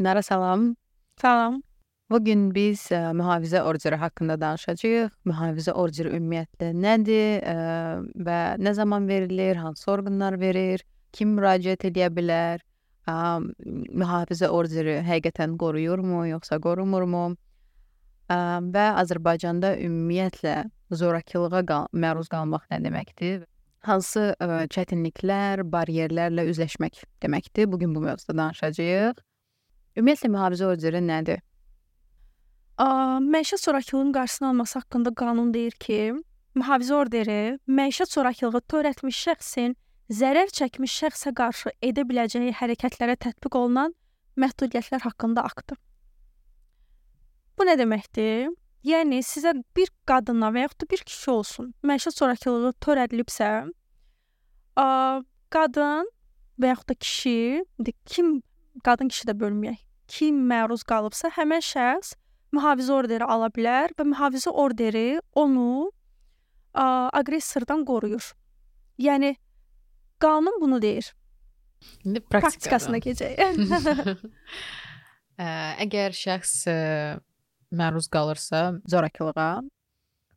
Dinara salam. Salam. Bugün biz mühafizə orderi haqqında danışacağıq. Mühafizə orderi ümumiyyətlə nədir və nə zaman verilir, hansı orqanlar verir, kim müraciət edə bilər, mühafizə orderi həqiqətən qoruyurmu, yoxsa qorumurmu və Azərbaycanda ümumiyyətlə zorakılığa məruz qalmaq nə deməkdir? Hansı çətinliklər, bariyerlərlə üzləşmək deməkdir? Bugün bu mövzuda danışacağıq. Ümumiyyətlə mühafizə orderi nədir? Məişət zorakılığının qarşısını alması haqqında qanun deyir ki, mühafizə orderi məişət zorakılığı törətmiş şəxsin zərər çəkmiş şəxsə qarşı edə biləcəyi hərəkətlərə tətbiq olunan məhdudiyyətlər haqqında aktdır. Bu nə deməkdir? Yəni sizə bir qadına və yaxud da bir kişi olsun, məişət zorakılığı törədilibsə, qadın və yaxud da kişi, qadın kişi də bölməyək, kim məruz qalıbsa, həmin şəxs mühafizə orderi ala bilər və mühafizə orderi onu aqressordan qoruyur. Yəni qanun bunu deyir. İndi Praktikasına keçək. Əgər şəxs məruz qalırsa zorakılığa,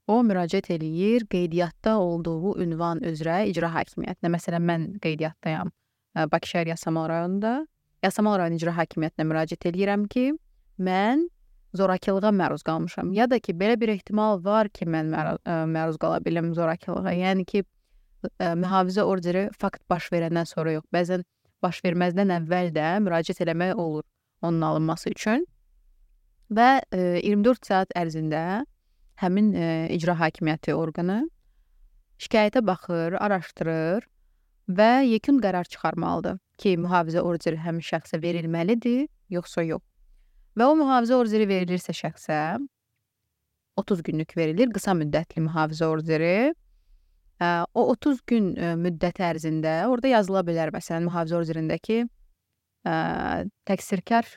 o müraciət eləyir qeydiyyatda olduğu ünvan üzrə icra hakimiyyətinə. Məsələn, mən qeydiyyatdayam Bakı şəhər Yasamal rayonunda. Yasamal rayon icra hakimiyyətinə müraciət eləyirəm ki, mən zorakılığa məruz qalmışam. Ya da ki, belə bir ehtimal var ki, mən məruz qala bilim zorakılığa. Yəni ki, mühafizə orderi fakt baş verəndən sonra yox, bəzən baş verməzdən əvvəl də müraciət eləmək olur onun alınması üçün. Və 24 saat ərzində həmin icra hakimiyyəti orqanı şikayətə baxır, araşdırır və yekun qərar çıxarmalıdır ki, mühafizə orderi həmin şəxsə verilməlidir, yoxsa yox. Və o mühafizə orderi verilirsə şəxsə 30 günlük verilir, qısa müddətli mühafizə orderi. O 30 gün müddət ərzində orada yazıla bilər, məsələn, mühafizə orderindəki təqsirkar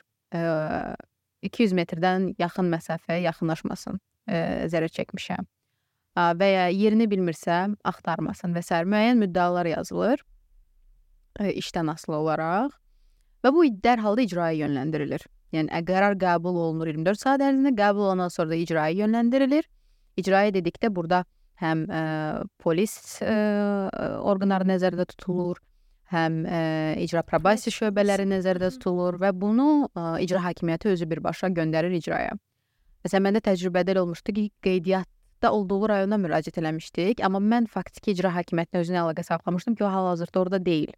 200 metrdən yaxın məsafəyə yaxınlaşmasın, zərər çəkmişəm və ya yerini bilmirsə axtarmasın və s. müəyyən müddəalar yazılır işdən asılı olaraq və bu dərhal da icraya yönləndirilir. Yəni qərar qəbul olunur 24 saat ərzində, qəbul olandan sonra da icraya yönləndirilir. İcraya dedikdə burada həm polis orqanları nəzərdə tutulur, həm icra probasiya şöbələri nəzərdə tutulur və bunu icra hakimiyyəti özü birbaşa göndərir icraya. Məsələn, məndə təcrübədə olmuşdu ki, qeydiyyatda olduğu rayona müraciət eləmişdik, amma mən faktiki icra hakimiyyətinə özünə əlaqə saxlamışdım ki, o hal-hazırda orada deyil.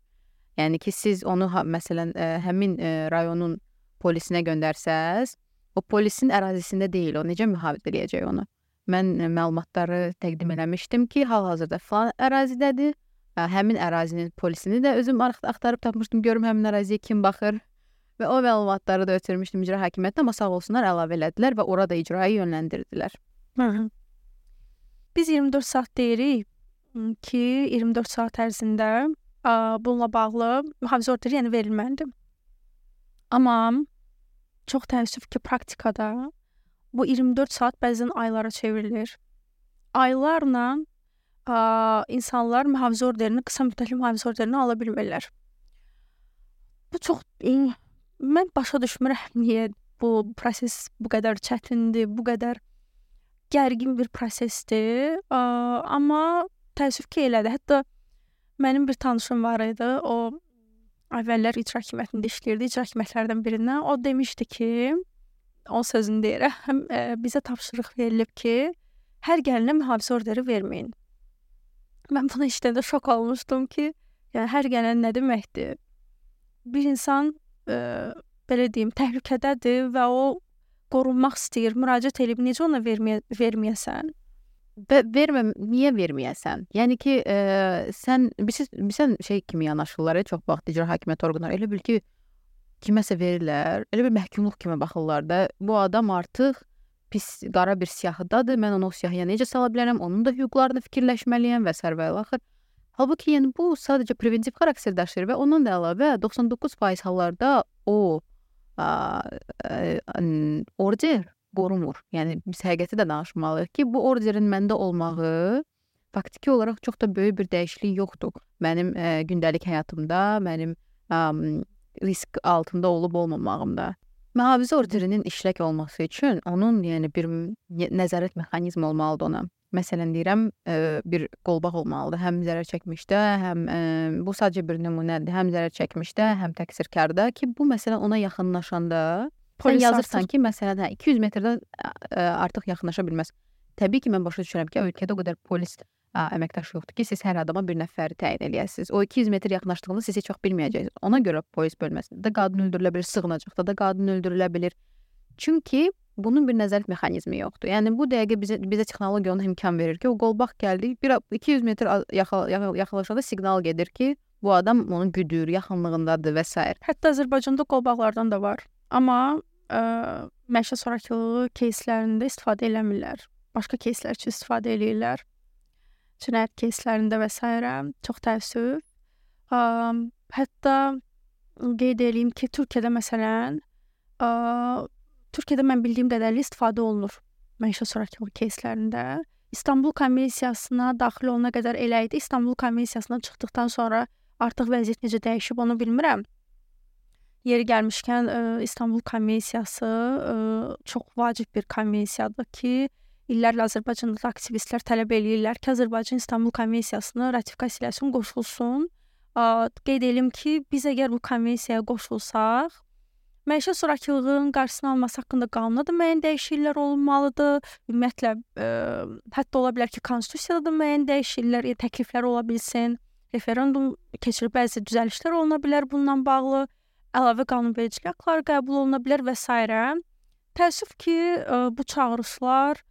Yəni ki, siz onu məsələn həmin rayonun polisinə göndərsəz, o polisin ərazisində deyil, o necə mühafizə edəcək onu? Mən məlumatları təqdim eləmişdim ki, hal-hazırda falan ərazidədir. Həmin ərazinin polisini də özüm axtarıb tapmışdım, görüm həmin əraziyə kim baxır və o məlumatları da ötürmüşdüm icra hakimiyyətinə, amma sağ olsunlar əlavə elədilər və orada icraya yönləndirdilər. Biz 24 saat deyirik ki, 24 saat ərzində bununla bağlı mühafizə orderi yəni verilməlidir. Amma çox təəssüf ki, praktikada bu 24 saat bəzən aylara çevrilir. Aylarla insanlar mühafizə orderini, qısa müddətli mühafizə orderini ala bilmirlər. Bu çox, mən başa düşmürəm niyə bu proses bu qədər çətindir, bu qədər gərgin bir prosesdir. Amma təəssüf ki, elədir. Hətta mənim bir tanışım var idi, o əvvəllər icra hakimiyyətində işləyirdi, icra hakimiyyətlərdən birindən. O demişdi ki, onun sözünü deyirəm, bizə tapşırıq verilib ki, hər gəlinə mühafizə orderi verməyin. Mən bunu işləndə şok olmuşdum ki, yəni hər gələn nə deməkdir? Bir insan, belə deyim, təhlükədədir və o qorunmaq istəyir, müraciət edib, necə ona verməyəsən? Niyə verməyəsən? Yəni ki, sən şey kimi yanaşırlar, çox vaxt icra hakimiyyəti orqanları, elə bil ki, kiməsə verirlər, elə bir məhkumluq kimi baxırlar da, bu adam artıq pis, qara bir siyahıdadır, mən onu o siyahıya necə sala bilərəm, onun da hüquqlarını fikirləşməliyəm və s. və axır. Halbuki, yəni, bu sadəcə preventiv xarakter daşıyır və ondan da əlavə 99% hallarda o order qorumur. Yəni, biz həqiqəti də danışmalıyıq ki, bu orderin məndə olmağı faktiki olaraq çox da böyük bir dəyişiklik yoxdur. Mənim gündəlik həyatımda, mənim risk altında olub olmamağımda. Mühafizə orderinin işlək olması üçün onun yəni bir nəzarət mexanizmi olmalıdır ona. Məsələn deyirəm, bir qolbaq olmalıdır. Həm zərər çəkmişdə, həm bu sadəcə bir nümunədir. Həm zərər çəkmişdə, həm təqsirkarda ki, bu məsələn ona yaxınlaşanda sən yazırsan ki, məsələn, 200 metrdən artıq yaxınlaşa bilməz. Təbii ki, mən başa düşürəm ki, ölkədə o qədər polis əməkdaşı yoxdur ki, siz hər adama bir nəfəri təyin eləyəsiniz. O 200 metr yaxınlaşdığında siz heç vaxt bilməyəcəksiniz. Ona görə polis bölməsində qadın öldürülə bilir, sığınacaqda da qadın öldürülə bilir. Çünki bunun bir nəzarət mexanizmi yoxdur. Yəni bu dəqiqə bizə texnologiya ona imkan verir ki, o qolbaq gəldi, 200 metr yaxınlaşanda siqnal gedir ki, bu adam onu güdür, yaxınlığındadır və s. Hətta Azərbaycanda qolbaqlardan da var. Amma məişət zorakılığı keyslərində istifadə eləmirlər. Başqa keyslər üçün istifadə eləyirlər. Cinayət keyslərində və s. Çox təəssüf. Hətta qeyd edeyim ki, Türkiyədə məsələn, Türkiyədə mən bildiyim qədərilə istifadə olunur məişət zorakılığı keyslərində. İstanbul Konvensiyasına daxil olana qədər elə idi. İstanbul Konvensiyasından çıxdıqdan sonra artıq vəziyyət necə dəyişib onu bilmirəm. Yeri gəlmişkən İstanbul Konvensiyası çox vacib bir konvensiyadır ki, illərlə Azərbaycanda da aktivistlər tələb eləyirlər ki, Azərbaycan İstanbul Konvensiyasını ratifikasiya eləsin, qoşulsun. Qeyd edelim ki, biz əgər bu konvensiyaya qoşulsaq, məişət zorakılığının qarşısını alması haqqında qanuna da müəyyən dəyişikliklər olunmalıdır. Ümumiyyətlə, hətta ola bilər ki, konstitusiyada da müəyyən dəyişikliklər, təkliflər ola bilsin. Referendum keçirib bəzi düzəlişlər oluna bilər bununla bağlı. Əlavə qanunvericilik aktları qəbul oluna bilər və s. Təəssüf ki, bu çağırışlar,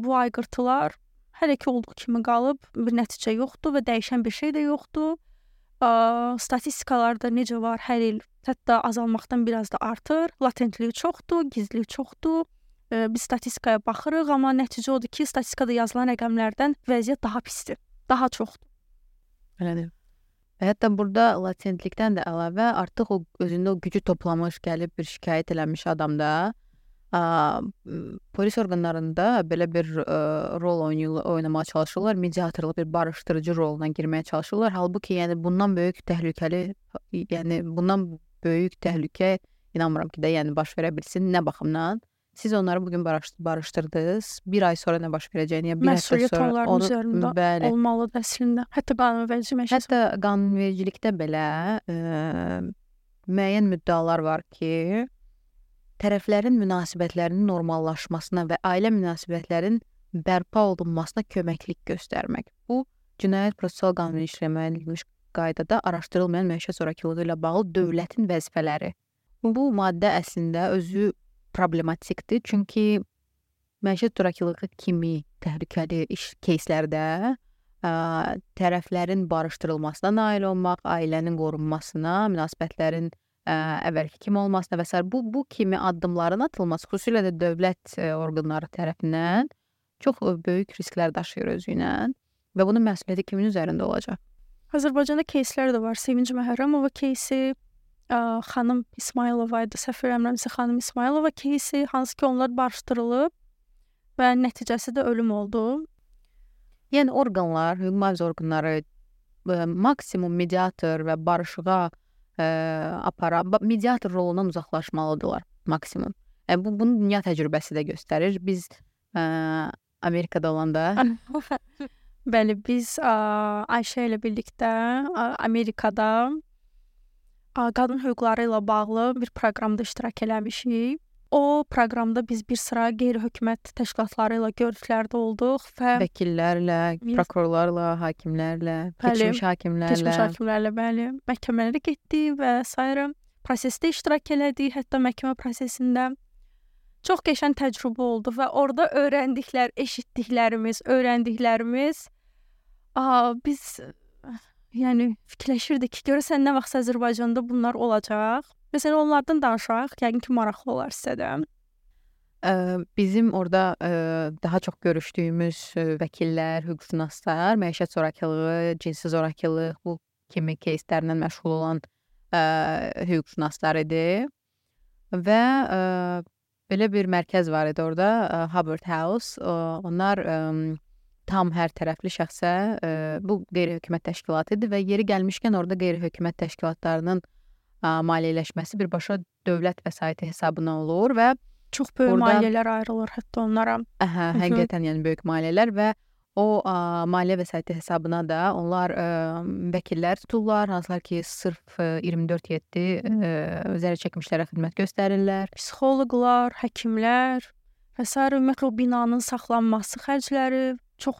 bu ayqırtılar hələ ki olduğu kimi qalıb, bir nəticə yoxdur və dəyişən bir şey də yoxdur. Statistikalarda necə var, hər il hətta azalmaqdan biraz da artır. Latentliyi çoxdur, gizliyi çoxdur. Biz statistikaya baxırıq, amma nəticə odur ki, statistikada yazılan rəqəmlərdən vəziyyət daha pisdir, daha çoxdur. Elədir. Hətta burada latentlikdən də əlavə artıq o özündə o gücü toplamış, gəlib bir şikayət eləmiş adamda polis orqanlarında belə bir rol oynamağa çalışırlar, mediatorluq bir barışdırıcı roluna girməyə çalışırlar. Halbuki yəni bundan böyük təhlükə inanmıram ki də yəni baş verə bilsin. Nə baxımdan? Siz onları bugün barışdırdınız. Bir ay sonra nə baş verəcəyini, ya bir həftə sonra onların üzərində olmalıdır əslində. Hətta qanunvericilikdə belə müəyyən müddəalar var ki, tərəflərin münasibətlərinin normallaşmasına və ailə münasibətlərin bərpa olunmasına köməklik göstərmək. Bu, Cinayət Prosessual Qanunu ilə müəyyən edilmiş qaydada araşdırılmayan məişət zorakılığı ilə bağlı dövlətin vəzifələri. Bu maddə əslində özü problematikdir, çünki məişət zorakılığı kimi təhlükəli iş keyslərdə tərəflərin barışdırılmasına nail olmaq, ailənin qorunmasına, münasibətlərin əvvəlki kimi olmasına və s. Bu kimi addımların atılması, xüsusilə də dövlət orqanları tərəfindən çox böyük risklər daşıyır özü ilə və bunun məsuliyyəti kimin üzərində olacaq? Azərbaycanda keyslər də var. Sevinc Məhrəmova keysi, xanım İsmailova idi, səhv eləmirəmsə xanım İsmailova keysi, hansı ki onlar barışdırılıb və nəticəsi də ölüm oldu. Yəni orqanlar, hüquq mühafizə orqanları maksimum mediator və barışığa mediator rolundan uzaqlaşmalıdırlar maksimum. Bunu dünya təcrübəsi də göstərir. Biz Amerikada olanda bəli, biz Ayşə ilə birlikdə Amerikada qadın hüquqları ilə bağlı bir proqramda iştirak eləmişik. O proqramda biz bir sıra qeyri-hökumət təşkilatları ilə görüşlərdə olduq və vəkillərlə, prokurorlarla, hakimlərlə, keçmiş hakimlərlə, bəli, məhkəmələrə getdik və s. prosesdə iştirak elədik, hətta məhkəmə prosesində. Çox qəşəng təcrübə oldu və orada eşitdiklərimiz, öyrəndiklərimiz biz yəni fikirləşirdik ki, görəsən nə vaxt Azərbaycanda bunlar olacaq. Məsələn, onlardan danışaq, yəqin ki, maraqlı olar sizə də. Bizim orada daha çox görüşdüyümüz vəkillər, hüquqşünaslar, məişət zorakılığı, cinsi zorakılıq, bu kimi keyslərlə məşğul olan hüquqşünaslar idi. Və belə bir mərkəz var idi orada, Hubbard House. Onlar tam hər tərəfli şəxsə, bu qeyri-hökumət təşkilatı idi və yeri gəlmişkən orada qeyri-hökumət təşkilatlarının maliyyələşməsi birbaşa dövlət vəsaiti hesabına olur və Çox böyük Orada- maliyyələr ayrılır hətta onlara. həqiqətən yəni böyük maliyyələr və o maliyyə vəsaiti hesabına da onlar vəkillər tuturlar, hansılar ki, sırf 24/7 zərər çəkmişlərə xidmət göstərirlər. Psixoloqlar, həkimlər və sair ümumiyyətlə o binanın saxlanması xərcləri çox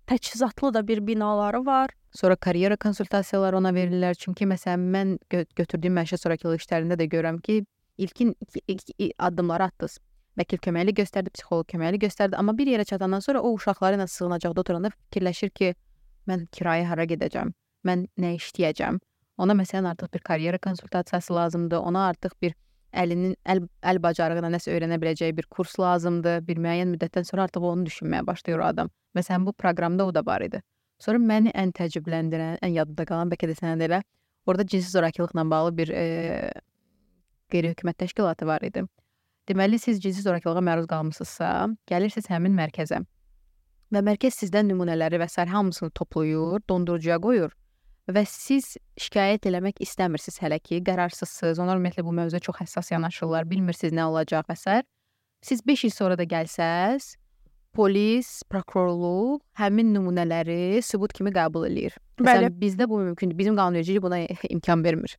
təchizatlı da bir binaları var. Sonra karyera konsultasiyaları ona verirlər. Çünki məsələn mən götürdüyüm məişət sonrakılıq işlərində də görürəm ki, ilkin iki addımları atdınız. Vəkil köməkli göstərdi, psixoloq köməkli göstərdi, amma bir yerə çatandan sonra o uşaqları ilə sığınacaqda oturanda fikirləşir ki, mən kirayə hara gedəcəm, mən nə işləyəcəm. Ona məsələn artıq bir karyera konsultasiyası lazımdır, ona artıq bir əl bacarığına nəsə öyrənə biləcəyi bir kurs lazımdır. Bir müəyyən müddətdən sonra artıq onu düşünməyə başlayır o adam. Məsələn bu proqramda o da var idi. Sonra məni ən təəccübləndirən, ən yadımda qalan bəlkə də sənə də elə, orada cinsi zorakılıqla bağlı bir qeyri-hökumət təşkilatı var idi. Deməli, siz cinsi zorakılığa məruz qalmısınızsa, gəlirsiniz həmin mərkəzə və mərkəz sizdən nümunələri və sair hamısını toplayır, dondurucuya qoyur və siz şikayət eləmək istəmirsiniz hələ ki, qərarsızsınız. Onlar ümumiyyətlə bu mövzuya çox həssas yanaşırlar, bilmirsiniz nə olacaq və sair. Siz 5 il sonra da gəlsəz, polis, prokurorluq həmin nümunələri sübut kimi qəbul eləyir. Bəli. Məsələn, bizdə bu mümkündür. Bizim qanunvericilik buna imkan vermir.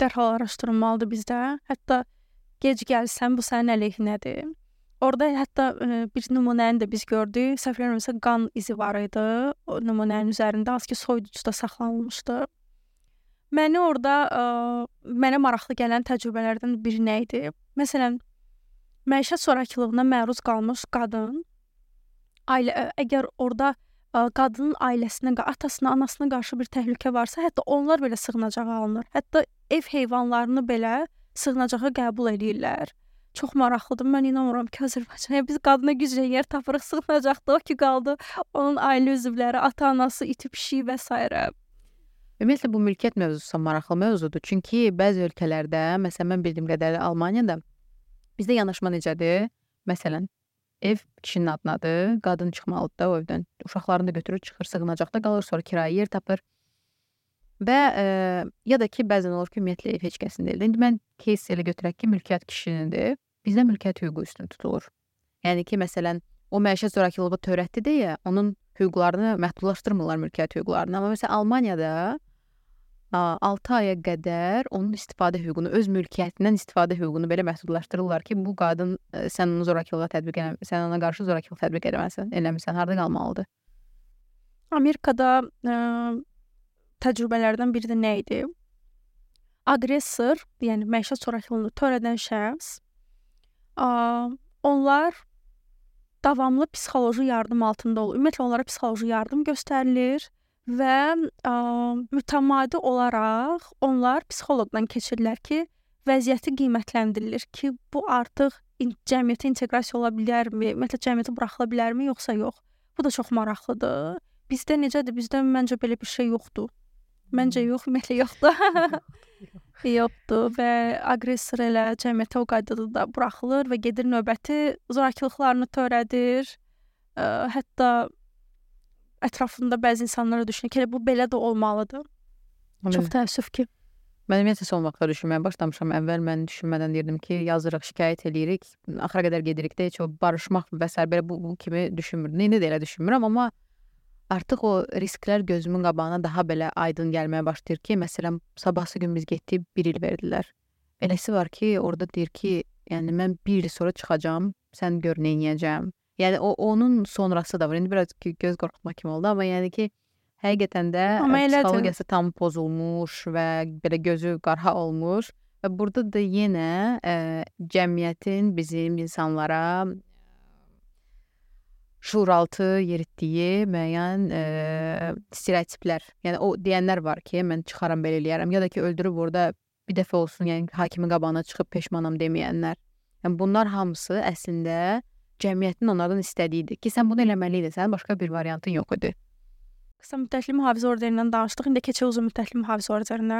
Dərhal araşdırılmalıdır bizdə. Hətta gec gəlsən bu sənin əleyhinədir. Orada hətta bir nümunəni də biz gördük. Səhv eləmirəmsə qan izi var idi. O nümunənin üzərində az ki soyuducuda saxlanılmışdı. Mənə maraqlı gələn təcrübələrdən biri nə idi? Məsələn, məişət zorakılığına məruz qalmış qadın əgər orada qadının ailəsinə, atasına, anasına qarşı bir təhlükə varsa, hətta onlar belə sığınacağa alınır. Hətta ev heyvanlarını belə sığınacağa qəbul edirlər. Çox maraqlıdır. Mən inanmıram ki, Azərbaycanda biz qadına güclə yer tapırıq, sığınacaqda o ki qaldı. Onun ailə üzvləri, ata-anası, iti pişiyi və s. Ümumiyyətlə bu mülkiyyət mövzusu maraqlı mövzudur. Çünki bəzi ölkələrdə, məsələn mən bildiyim qədərilə Almaniyada bizdə yanaşma necədir? Məsələn, ev kişinin adınadır, qadın çıxmalıdır da o evdən. Uşaqlarını da götürür, çıxır, sığınacaqda qalır, sonra kirayə yer tapır. Və ya da ki, bəzən olur ki, ümumiyyətlə ev heç kəsin deyil. İndi mən case elə götürək ki, mülkiyyət kişinindir. Bizdə mülkiyyət hüququ üstün tutulur. Yəni ki, məsələn, o məişət zorakılığı törətdi deyə onun hüquqlarını məhdudlaşdırmırlar mülkiyyət hüquqlarını. Amma məsələn Almaniyada 6 aya qədər onun istifadə hüququnu, öz mülkiyyətindən istifadə hüququnu belə məhdudlaşdırırlar ki, bu qadın sən onu zorakılığa tətbiq eləmirsən, sən ona qarşı zorakılıq tətbiq eləmirsən, harda qalmalıdır? Amerikada təcrübələrdən biri də nə idi? Aqressor, yəni məişət zorakılığını törədən şəxs, onlar davamlı psixoloji yardım altında olur. Ümumiyyətlə onlara psixoloji yardım göstərilir və mütəmadi olaraq onlar psixoloqdan keçirlər ki, vəziyyəti qiymətləndirilir ki, bu artıq cəmiyyətə inteqrasiya ola bilərmi, ümumiyyətlə cəmiyyətə buraxıla bilərmi, yoxsa yox. Bu da çox maraqlıdır. Bizdə necədir? Bizdə məncə belə bir şey yoxdur. Məncə yox, ümumiyyətlə yoxdur. Yoxdur və aqressor elə cəmiyyətə o qaydada da buraxılır və gedir növbəti zorakılıqlarını törədir. Hətta ətrafında bəzi insanlara düşünür ki, bu belə də olmalıdır. Çox təəssüf ki. Mən ümumiyyətlə son vaxtlar düşünməyə başlamışam. Əvvəl mən düşünmədən deyirdim ki, yazırıq, şikayət eləyirik, axıra qədər gedirik də, heç o barışmaq və s. belə bu kimi düşünmürdüm. İndi də elə düşünmürəm, amma artıq o risklər gözümün qabağına daha belə aydın gəlməyə başlayır ki, məsələn, sabahsı gün biz getdik, 1 il verdilər. Eləsi var ki, orada deyir ki, yəni mən 1 il sonra çıxacağam, sən gör nə edəcəm. Yəni onun sonrası da var. İndi biraz göz qorxutma kimi oldu, amma yəni ki, həqiqətən də psixologiyası tam pozulmuş və belə gözü qarha olmuş və burada da yenə cəmiyyətin bizim insanlara şuuraltı yeritdiyi müəyyən stereotiplər. Yəni o deyənlər var ki, mən çıxaram belə eləyərəm ya da ki, öldürüb orada bir dəfə olsun, yəni hakimin qabağına çıxıb peşmanam deməyənlər. Yəni bunlar hamısı əslində cəmiyyətin onlardan istədiyidir ki, sən bunu eləməliydin, sənin başqa bir variantın yox idi. Qısa müddətli mühafizə orderindən danışdıq, indi keçək uzun müddətli mühafizə orderinə.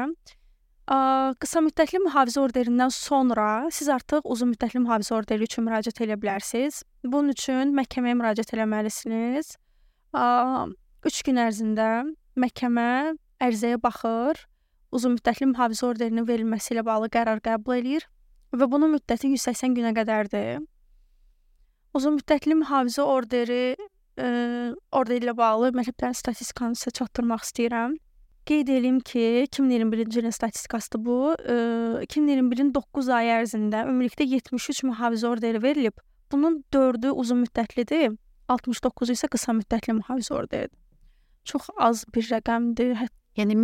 Qısa müddətli mühafizə orderindən sonra siz artıq uzun müddətli mühafizə orderi üçün müraciət edə bilərsiniz. Bunun üçün məhkəməyə müraciət etməlisiniz. 3 gün ərzində məhkəmə ərizəyə baxır. uzunmüddətli mühafizə orderinin verilməsi ilə bağlı qərar qəbul eləyir və bunun müddəti 180 günə qədərdir. Uzunmüddətli mühafizə orderi ilə bağlı mətləblərin statistikanı sizə çatdırmaq istəyirəm. Qeyd edeyim ki, 2021-ci ilin statistikasıdır bu. 2021-in 9 ay ərzində ümumilikdə 73 mühafizə orderi verilib. Bunun 4-ü uzunmüddətlidir, 69-u isə qısa müddətli mühafizə orderidir. Çox az bir rəqəmdir. Yəni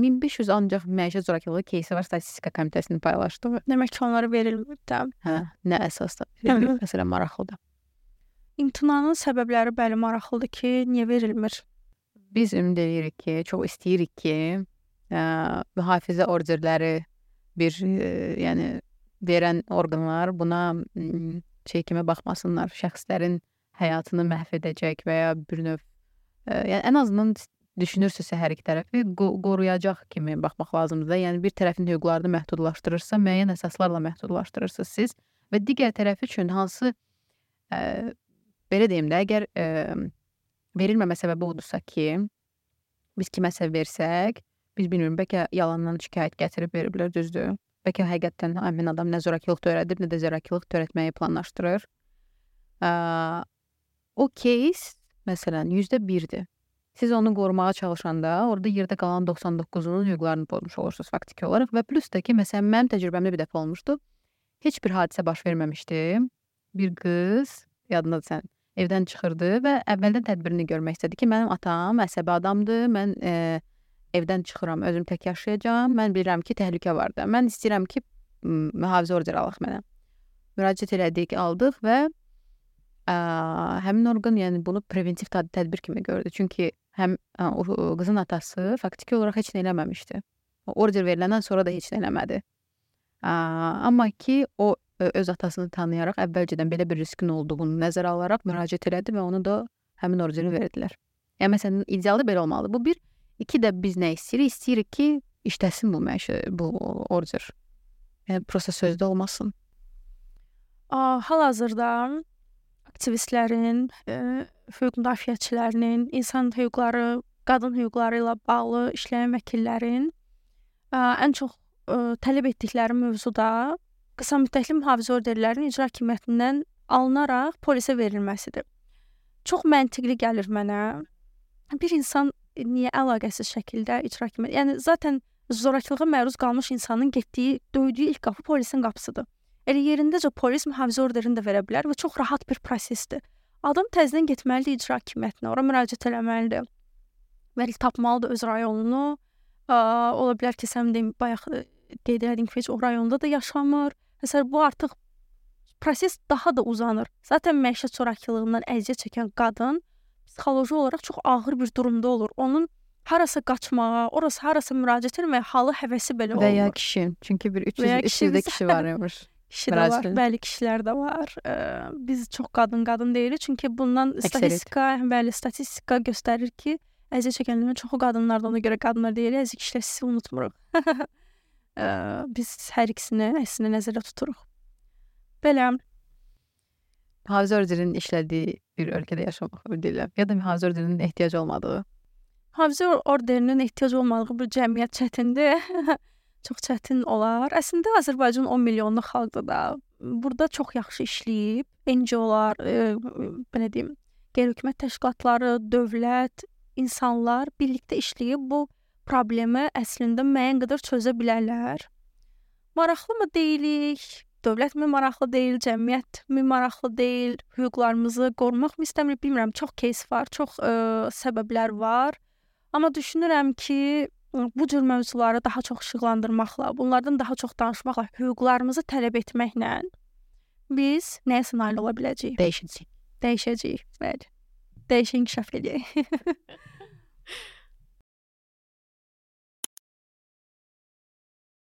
1500 ancaq məişət zorakılığı кейsi var statistika komitəsinin paylaşdığı. Demək ki, onlara verilmir də. Hə, nə əsasda? Məsələn, maraqlıdır. İmtinanın səbəbləri bəli maraqlıdır ki, niyə verilmir? Biz ümid edirik ki, çox istəyirik ki, mühafizə orderləri yəni verən orqanlar buna kimi baxmasınlar, şəxslərin həyatını məhv edəcək və ya bir növ yəni ən azından düşünürsünüzsə hər iki tərəfi qoruyacaq kimi baxmaq lazımdır. Yəni bir tərəfin hüquqlarını məhdudlaşdırırsa, müəyyən əsaslarla məhdudlaşdırırsınız siz və digər tərəf üçün hansı belə deyim də, əgər verilməmə səbəbi olursa ki, biz kiməsə versək, biz bilmiyorum, bəlkə yalandan şikayət gətirib veriblər, düzdür. Bəlkə həqiqətən həmin adam nə zorakılıq törədir, nə də zorakılıq törətməyi planlaşdırır. O case, məsələn, 1%-dir. Siz onu qorumağa çalışanda, orada yerdə qalan 99-unun hüquqlarını pozmuş olursunuz faktiki olaraq və plus da ki, məsələn, mənim təcrübəmdə bir dəfə olmuşdu. Heç bir hadisə baş verməmişdi. Bir qız, yadındadır sən, evdən çıxırdı və əvvəldən tədbirini görmək istədi ki, mənim atam əsəbi adamdır, mən evdən çıxıram, özüm tək yaşayacağam, mən bilirəm ki, təhlükə vardır. Mən istəyirəm ki, mühafizə orderi alaq mənə. Müraciət elədik, aldıq və həmin orqan yəni bunu preventiv tədbir kimi gördü. Çünki həm o qızın atası faktiki olaraq heç nə eləməmişdi. Order veriləndən sonra da heç nə eləmədi. Amma ki, o öz atasını tanıyaraq əvvəlcədən belə bir riskin olduğunu nəzərə alaraq müraciət elədi və onu da həmin orderi verdilər. Yəni, məsələn, idealda belə olmalıdır. Bu bir. İki də biz nə istəyirik? İstəyirik ki, işləsin bu order. Yəni, proses sözdə olmasın. Hal-hazırda aktivistlərin, hüquq müdafiəçilərinin, insan hüquqları, qadın hüquqları ilə bağlı işləyən vəkillərin ən çox tələb etdikləri mövzuda qısa müddətli mühafizə orderlərinin icra hakimiyyətindən alınaraq polisə verilməsidir. Çox məntiqli gəlir mənə. Bir insan niyə əlaqəsiz şəkildə icra hakimiyyəti? Yəni, zaten zorakılığa məruz qalmış insanın getdiyi, döydüyü ilk qapı polisin qapısıdır. Elə yerindəcə polis mühafizə orderini də verə bilər və çox rahat bir prosesdir. Adam təzədən getməlidir icra hakimiyyətinə, ora müraciət eləməlidir. Vəli tapmalıdır öz rayonunu. Ola bilər ki, sən deyim, bayaq qeyd edin ki, heç o rayonda da yaşamır. Məsələn, bu artıq proses daha da uzanır. Zaten məişət zorakılığından əziyyət çəkən qadın psixoloji olaraq çox ağır bir durumda olur. Onun harasa qaçmağa, harasa müraciət etməyə halı, həvəsi belə olur. Və ya kişi. Çünki bir 300-də kişi var imiş. Kişi də var, bəli kişilər də var. Biz çox qadın deyirik. Çünki bundan statistika göstərir ki, əziyyət çəkənlərin çoxu qadınlardır. Ona görə qadınlar deyirik, əziyyət kişilər sizi unutmuruq. Biz hər ikisini əslində nəzərdə tuturuq. Belə. Mühafizə orderinin işlədiyi bir ölkədə yaşamaq deyirlər. Ya da mühafizə orderinin ehtiyac olmadığı. Mühafizə orderinin ehtiyac olmadığı bir cəmiyyət çətindir. Çox çətin olar. Əslində Azərbaycan 10 milyonluq xalqdır da. Burada çox yaxşı işləyib. NGO-lar, belə deyim, qeyri-hökumət təşkilatları, dövlət, insanlar birlikdə işləyib bu problemi əslində müəyyən qədər çözə bilərlər. Maraqlı mı deyilik? Dövlət mi maraqlı deyil? Cəmiyyət mi maraqlı deyil? Hüquqlarımızı qorumaq mı istəmirik? Bilmirəm, çox case var, çox səbəblər var. Amma düşünürəm ki, bu cür mövzuları daha çox işıqlandırmaqla, bunlardan daha çox danışmaqla, hüquqlarımızı tələb etməklə biz nəyə nail ola biləcəyik? Dəyişəcəyik. Bəli. Dəyişə inkişaf edəcəyik.